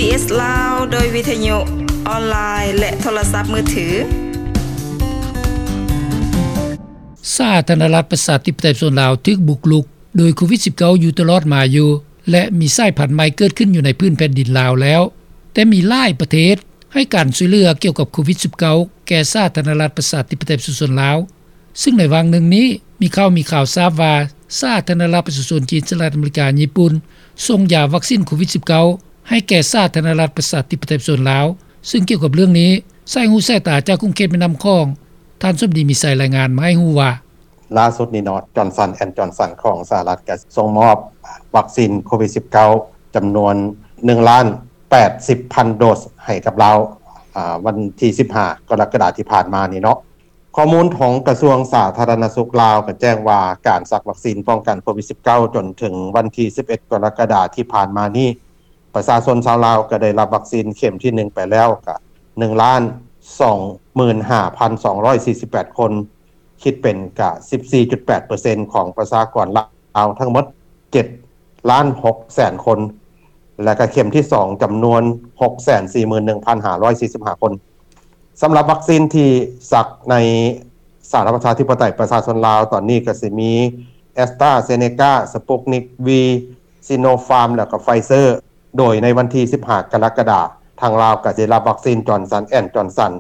ເອສ ລາວ ໂດຍວິທະຍຸ ອອນລາຍ ແລະ ໂທລະສັບມືຖື. ສາທາລະນະລັດປະຊາທິປະໄຕປະຊາຊົນລາວຖືກບຸກລຸກໂດຍໂຄວິດສິບເກົ້າຢູ່ຕະຫຼອດມາຢູ່ ແລະ ມີສາຍພັນໃໝ່ເກີດຂຶ້ນຢູ່ໃນພື້ນແຜ່ນດິນລາວແລ້ວ, ແຕ່ມີຫຼາຍປະເທດໃຫ້ການຊ່ວຍເຫຼືອກ່ຽວກັບໂຄວິດສິບເກົ້າແກ່ສາທາລະນະລັດປະຊາທິປະໄຕປະຊາຊົນລາວ. ຊຶ່ງໃນຫວ່າງໜຶ່ງນີ້ ມີຂ່າວ ມີຂ່າວຊາບວ່າ ສາທາລະນະລັດປະຊາຊົນຈີນ, ສະຫະລັດອາເມລິກາ, ຍີ່ປຸ່ນ ສົ່ງຢາວັກຊິນໂຄວິດສິບເກົ້າໃຫ້ແກ່ສາທາລະນະລັດປະຊາທິປະໄຕປະຊາຊົນລາວ. ຊຶ່ງກ່ຽວກັບເລື່ອງນີ້, ສາຍຫູສາຍຕາຈາກຂົງເຂດແມ່ນ້ຳຂອງ ທ່ານສົມດີ ມີໄຊ ລາຍງານມາໃຫ້ຮູ້ວ່າ ລ່າສຸດນີ້ເນາະ ຈອນສັນ ແອນ ຈອນສັນ ຂອງສະຫະລັດ ກໍສົ່ງມອບວັກຊິນໂຄວິດສິບເກົ້າ ຈຳນວນໜຶ່ງລ້ານແປດສິບພັນໂດສໃຫ້ກັບລາວ ອາ ວັນທີສິບຫ້າ ກໍລະກະດາທີ່ຜ່ານມານີ້ເນາະ. ຂໍ້ມູນຂອງກະຊວງສາທາລະນະສຸກລາວກໍແຈ້ງວ່າ ການສັກວັກຊິນປ້ອງກັນໂຄວິດສິບເກົ້າ ຈົນເຖິງວັນທີສິບເອັດ ກໍລະກະດາທີ່ຜ່ານມານີ້ ປະຊາຊົນຊາວລາວກໍໄດ້ຮັບວັກຊິນເຂັມທີໜຶ່ງໄປແລ້ວກະໜຶ່ງລ້ານສອງໝື່ນຫ້າພັນສອງຮ້ອຍສີ່ສິບແປດຄົນ, ຄິດເປັນກະສິບສີ່ຈຸດແປດເປີເຊັນຂອງປະຊາກອນລາວທັງໝົດເຈັດລ້ານຫົກແສນຄົນ ແລະກະເຂັມທີສອງຈຳນວນຫົກແສນສີ່ໝື່ນໜຶ່ງພັນຫ້າຮ້ອຍສີ່ສິບຫ້າຄົນ. ສຳລັບວັກຊິນທີ່ສັກໃນສາທາລະນະລັດປະຊາທິປະໄຕປະຊາຊົນລາວຕອນນີ້ກໍຊິມີ AstraZeneca, Sputnik V, Sinopharm ແລ້ວກໍ Pfizer. ໂດຍໃນວັນທີສິບຫ້າ ກໍລະກະດາ, ທາງລາວກໍຈະໄດ້ຮັບວັກຊິນ Johnson and Johnson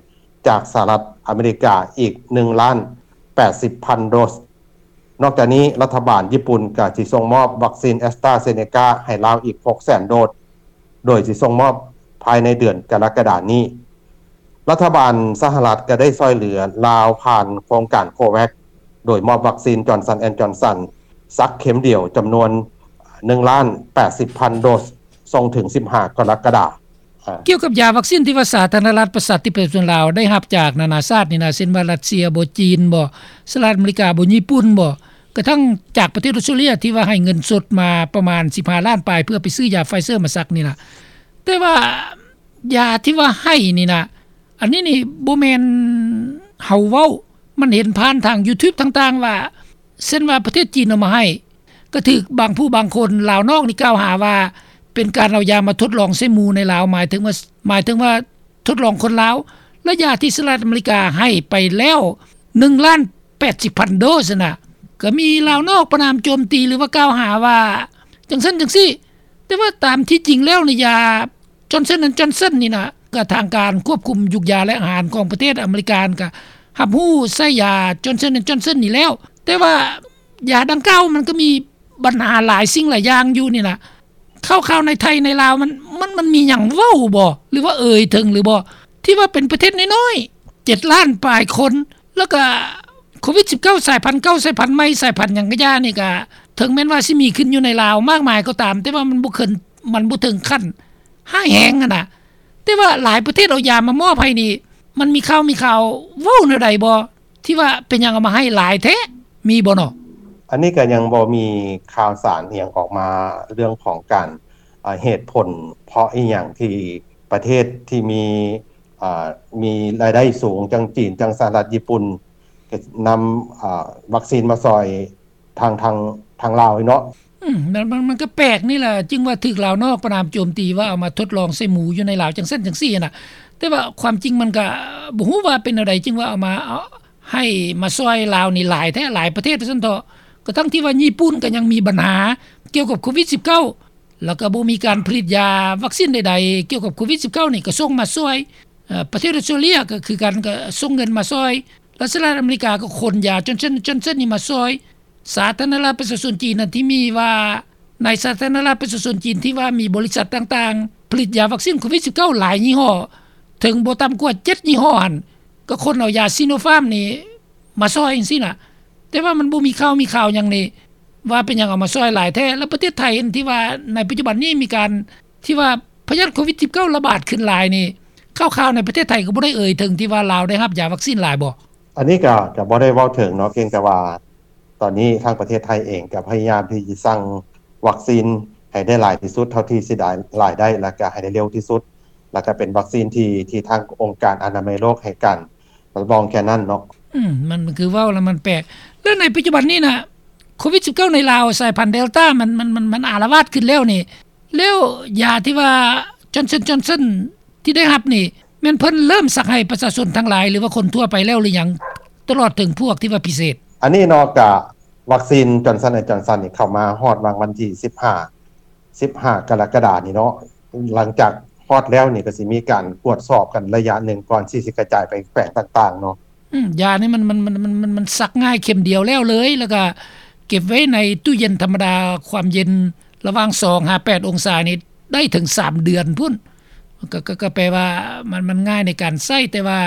ຈາກສະຫະລັດອາເມລິກາອີກໜຶ່ງລ້ານແປດສິບພັນໂດສ. ນອກຈາກນີ້, ລັດຖະບານຍີ່ປຸ່ນກໍຊິສົ່ງມອບວັກຊິນ AstraZeneca ໃຫ້ລາວອີກຫົກແສນໂດສ, ໂດຍຊິສົ່ງມອບພາຍໃນເດືອນກໍລະກະດານີ້. ລັດຖະບານສະຫະລັດກໍໄດ້ຊ່ອຍເຫຼືອລາວຜ່ານໂຄງການ COVAX ໂດຍມອບວັກຊິນ Johnson and Johnson ສັກເຂັມດຽວຈຳນວນໜຶ່ງລ້ານແປດສິບພັນໂດສ ສົ່ງເຖິງສິບຫ້າ ກໍລະກະດາ. ກ່ຽວກັບຢາວັກຊິນທີ່ວ່າສາທາລະນະລັດປະຊາທິປະໄຕປະຊາຊົນລາວໄດ້ຮັບຈາກນານາຊາດນີ້ນະ, ເຊັ່ນວ່າຣັດເຊຍບໍ, ຈີນບໍ, ສະຫະລັດອາເມລິກາບໍ, ຍີ່ປຸ່ນບໍ, ກະທັ່ງຈາກປະເທດອົດສະຕຣາເລຍທີ່ວ່າໃຫ້ເງິນສົດມາປະມານສິບຫ້າລ້ານປາຍ ເພື່ອໄປຊື້ຢາ Pfizer ມາສັກນີ້ນະ. ແຕ່ວ່າຢາທີ່ວ່າໃຫ້ນີ້ນະ, ອັນນີ້ນີ້ບໍ່ແມ່ນເຮົາເວົ້າ, ມັນເຫັນຜ່ານທາງ YouTube ຕ່າງໆ ວ່າ ເຊັ່ນວ່າປະເທດຈີນເອົາມາໃຫ້, ກໍຖືກບາງຜູ້ບາງຄົນລາວນອກນີ້ກ່າວຫາວ່າ ເປັນການເອົາຢາມາທົດລອງໃສ່ໝູໃນລາວ, ໝາຍເຖິງວ່າ ໝາຍເຖິງວ່າທົດລອງຄົນລາວ. ແລະ ຢາທີ່ສະຫະລັດອາເມລິກາໃຫ້ໄປແລ້ວໜຶ່ງລ້ານແປດສິບພັນໂດສນະ, ກໍມີລາວນອກປະນາມໂຈມຕີ ຫຼືວ່າກ່າວຫາວ່າຈັ່ງຊັ້ນຈັ່ງຊີ້. ແຕ່ວ່າຕາມທີ່ຈິງແລ້ວນີ້ ຢາ Johnson and Johnson ນີ້ນະ, ກໍທາງການຄວບຄຸມຢູກຢາ ແລະ ອາຫານຂອງປະເທດອາເມລິການ ກໍຮັບຮູ້ໃຊ້ຢາ Johnson and Johnson ນີ້ແລ້ວ. ແຕ່ວ່າຢາດັ່ງກ່າວມັນກໍມີບັນຫາຫຼາຍສິ່ງຫຼາຍຢ່າງຢູ່ນີ້ນະ. ຂ່າວໆໃນໄທໃນລາວມັນ ມັນ ມັນມີຫຍັງເວົ້າບໍ່ ຫຼືວ່າເອີ່ຍເຖິງຫຼືບໍ່ ທີ່ວ່າເປັນປະເທດນ້ອຍໆ ເຈັດລ້ານປາຍຄົນ ແລ້ວກໍໂຄວິດສິບເກົ້າສາຍພັນເກົ່າ ສາຍພັນໃໝ່ ສາຍພັນຫຍັງກໍຢ່ານີ້ ກໍເຖິງແມ່ນວ່າຊິມີຂຶ້ນຢູ່ໃນລາວມາກມາຍກໍຕາມ, ແຕ່ວ່າມັນບໍ່ເຖິງ ມັນບໍ່ເຖິງຂັ້ນຮ້າຍແຮງຫັ້ນນະ. ແຕ່ວ່າຫຼາຍປະເທດເອົາຢາມາມອບໃຫ້ນີ້ ມັນມີຂ່າວ ມີຂ່າວເວົ້າແນວໃດບໍ່ ທີ່ວ່າເປັນຫຍັງເອົາມາໃຫ້ຫຼາຍແທ້ ມີບໍ່ເນາະ? ອັນນີ້ກໍຍັງບໍ່ມີຂ່າວສານອີ່ຫຍັງອອກມາ ເລື່ອງຂອງການ ອາ ເຫດຜົນເພາະອີ່ຫຍັງທີ່ປະເທດທີ່ມີ ອາ ມີລາຍໄດ້ສູງ ຈັ່ງຈີນ ຈັ່ງສະຫະລັດ ຍີ່ປຸ່ນ ກໍນຳ ອາ ວັກຊີນມາຊ່ອຍ ທາງ ທາງ ທາງລາວເນາະ. ອືມ ມັນ ມັນ ມັນກໍແປກນີ້ລະ ຈຶ່ງວ່າຖືກລາວນອກປະນາມໂຈມຕີວ່າເອົາມາທົດລອງໃສ່ໝູຢູ່ໃນລາວ ຈັ່ງຊັ້ນຈັ່ງຊີ້ນະ. ແຕ່ວ່າຄວາມຈິງມັນກໍບໍ່ຮູ້ວ່າເປັນແນວໃດ ຈຶ່ງວ່າເອົາມາ ເອົາ ໃຫ້ມາຊ່ອຍລາວນີ້ຫຼາຍແທ້ ຫຼາຍປະເທດວ່າຊັ້ນເຖາະ. ກະທັ່ງທີ່ວ່າຍີ່ປຸ່ນກໍຍັງມີບັນຫາກ່ຽວກັບໂຄວິດສິບເກົ້າ ແລ້ວກໍບໍ່ມີການຜະລິດຢາວັກຊີນໃດໆກ່ຽວກັບໂຄວິດສິບເກົ້ານີ້ ກໍສົ່ງມາຊ່ອຍ. ເອີ ປະເທດອົດສະຕຣາເລຍກໍຄືກັນ ກໍສົ່ງເງິນມາຊ່ອຍ ແລະ ສະຫະລັດອາເມລິກາກໍຂົນຢາ Johnson Johnson ນີ້ມາຊ່ອຍ. ສາທາລະນະລັດປະຊາຊົນຈີນນັ້ນ ທີ່ມີວ່າ ໃນສາທາລະນະລັດປະຊາຊົນຈີນທີ່ວ່າມີບໍລິສັດຕ່າງໆ ຜະລິດຢາວັກຊີນໂຄວິດສິບເກົ້າຫຼາຍຍີ່ຫໍ້ ເຖິງບໍ່ຕ່ຳກວ່າເຈັດຍີ່ຫໍ້ຫັ້ນ ກໍຂົນເອົາຢາ Sinopharm ນີ້ມາຊ່ອຍຈັ່ງຊີ້ນະ. ແຕ່ວ່າມັນບໍ່ມີຂ່າວມີຄາວຫຍັງນີ້ ວ່າເປັນຫຍັງເອົາມາຊ່ອຍຫຼາຍແທ້. ແລ້ວປະເທດໄທທີ່ວ່າໃນປັດຈຸບັນນີ້ມີການທີ່ວ່າພະຍາດໂຄວິດສິບເກົ້າລະບາດຂຶ້ນຫຼາຍນີ້ ຂ່າວໆໃນປະເທດໄທກໍບໍ່ໄດ້ເອີ່ຍເຖິງທີ່ວ່າລາວໄດ້ຮັບຢາວັກຊີນຫຼາຍບໍ່? ອັນນີ້ກໍ ກໍບໍ່ໄດ້ເວົ້າເຖິງເນາະ, ພຽງແຕ່ວ່າຕອນນີ້ທາງປະເທດໄທເອງກໍພະຍາຍາມທີ່ຈະສັ່ງວັກຊີນໃຫ້ໄດ້ຫຼາຍທີ່ສຸດເທົ່າທີ່ຊິໄດ້ ຫຼາຍໄດ້ ແລ້ວກໍໃຫ້ໄດ້ເລັວທີ່ສຸດ ແລ້ວກໍເປັນວັກຊີນທີ່ ທີ່ທາງອົງການອະນາໄມໂລກໃຫ້ການ ຮັບຮອງແຄ່ນັ້ນເນາະ. ອືມ ມັນ ມັນຄືເວົ້າແລ້ວມັນແປກ. ແລ້ວໃນປັດຈຸບັນນີ້ນະ ໂຄວິດສິບເກົ້າໃນລາວສາຍພັນ Delta ມັນ ມັນ ມັນ ມັນອາລະວາດຂຶ້ນແລ້ວນີ້ ແລ້ວຢາທີ່ວ່າ Johnson Johnson ທີ່ໄດ້ຮັບນີ້ ແມ່ນເພິ່ນເລີ່ມສັກໃຫ້ປະຊາຊົນທັງຫຼາຍ ຫຼືວ່າຄົນທົ່ວໄປແລ້ວ ຫຼືຫຍັງ ຕະຫຼອດເຖິງພວກທີ່ວ່າພິເສດ? ອັນນີ້ເນາະ ກະວັກຊີນ Johnson and Johnson ນີ້ເຂົ້າມາຮອດຫວ່າງວັນທີສິບຫ້າ ສິບຫ້າ ກໍລະກະດານີ້ເນາະ. ຫຼັງຈາກຮອດແລ້ວນີ້ ກໍຊິມີການກວດສອບກັນໄລຍະໜຶ່ງ ກ່ອນທີ່ຊິກະຈາຍໄປແຂວງຕ່າງໆເນາະ. ອືມ ຢານີ້ມັນ ມັນ ມັນ ມັນ ມັນ ມັນສັກງ່າຍ ເຂັມດຽວແລ້ວເລີຍ ແລ້ວກະເກັບໄວ້ໃນຕູ້ເຢັນທຳມະດາ ຄວາມເຢັນລະຫວ່າງສອງຫາແປດອົງສານີ້ ໄດ້ເຖິງສາມເດືອນພຸ້ນ. ກໍ ກໍ ກໍແປວ່າມັນ ມັນງ່າຍໃນການໃຊ້ ແຕ່ວ່າ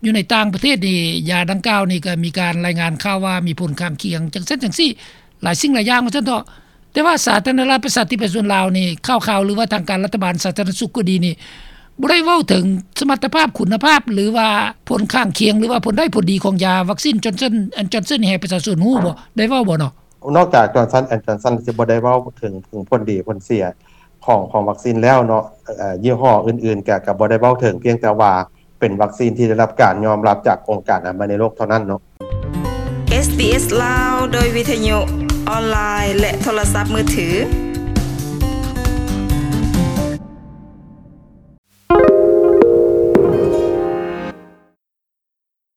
ຢູ່ໃນຕ່າງປະເທດນີ້ ຢາດັ່ງກ່າວນີ້ກໍມີການລາຍງານຂ່າວວ່າມີຜົນຂ້າງຄຽງ ຈັ່ງຊັ້ນຈັ່ງຊີ້ ຫຼາຍສິ່ງຫຼາຍຢ່າງວ່າຊັ້ນເຖາະ. ແຕ່ວ່າສາທາລະນະລັດປະຊາທິປະໄຕປະຊາຊົນລາວນີ້ ຂ່າວໆ ຫຼືວ່າທາງການລັດຖະບານສາທາລະນະສຸກກໍດີນີ້ ບໍ່ໄດ້ເວົ້າເຖິງສະມັດຕະພາບ ຄຸນນະພາບ ຫຼືວ່າຜົນຂ້າງຄຽງ ຫຼືວ່າຜົນໄດ້ຜົນດີຂອງຢາວັກຊີນ Johnson and Johnson ນີ້ໃຫ້ປະຊາຊົນຮູ້ບໍ່? ໄດ້ເວົ້າບໍ່ເນາະ? ນອກຈາກ Johnson and Johnson ຊິບໍ່ໄດ້ເວົ້າເຖິງ ເຖິງຜົນດີຜົນເສຍຂອງ ຂອງວັກຊີນແລ້ວເນາະ ເອີ່ ຍີ່ຫໍ້ອື່ນໆ ກະ ກະບໍ່ໄດ້ເວົ້າເຖິງ ພຽງແຕ່ວ່າເປັນວັກຊີນທີ່ໄດ້ຮັບການຍອມຮັບຈາກອົງການອະນາໄມໂລກເທົ່ານັ້ນເນາະ. ເອສບີເອສ ລາວ ໂດຍວິທະຍຸ ອອນລາຍ ແລະ ໂທລະສັບມືຖື.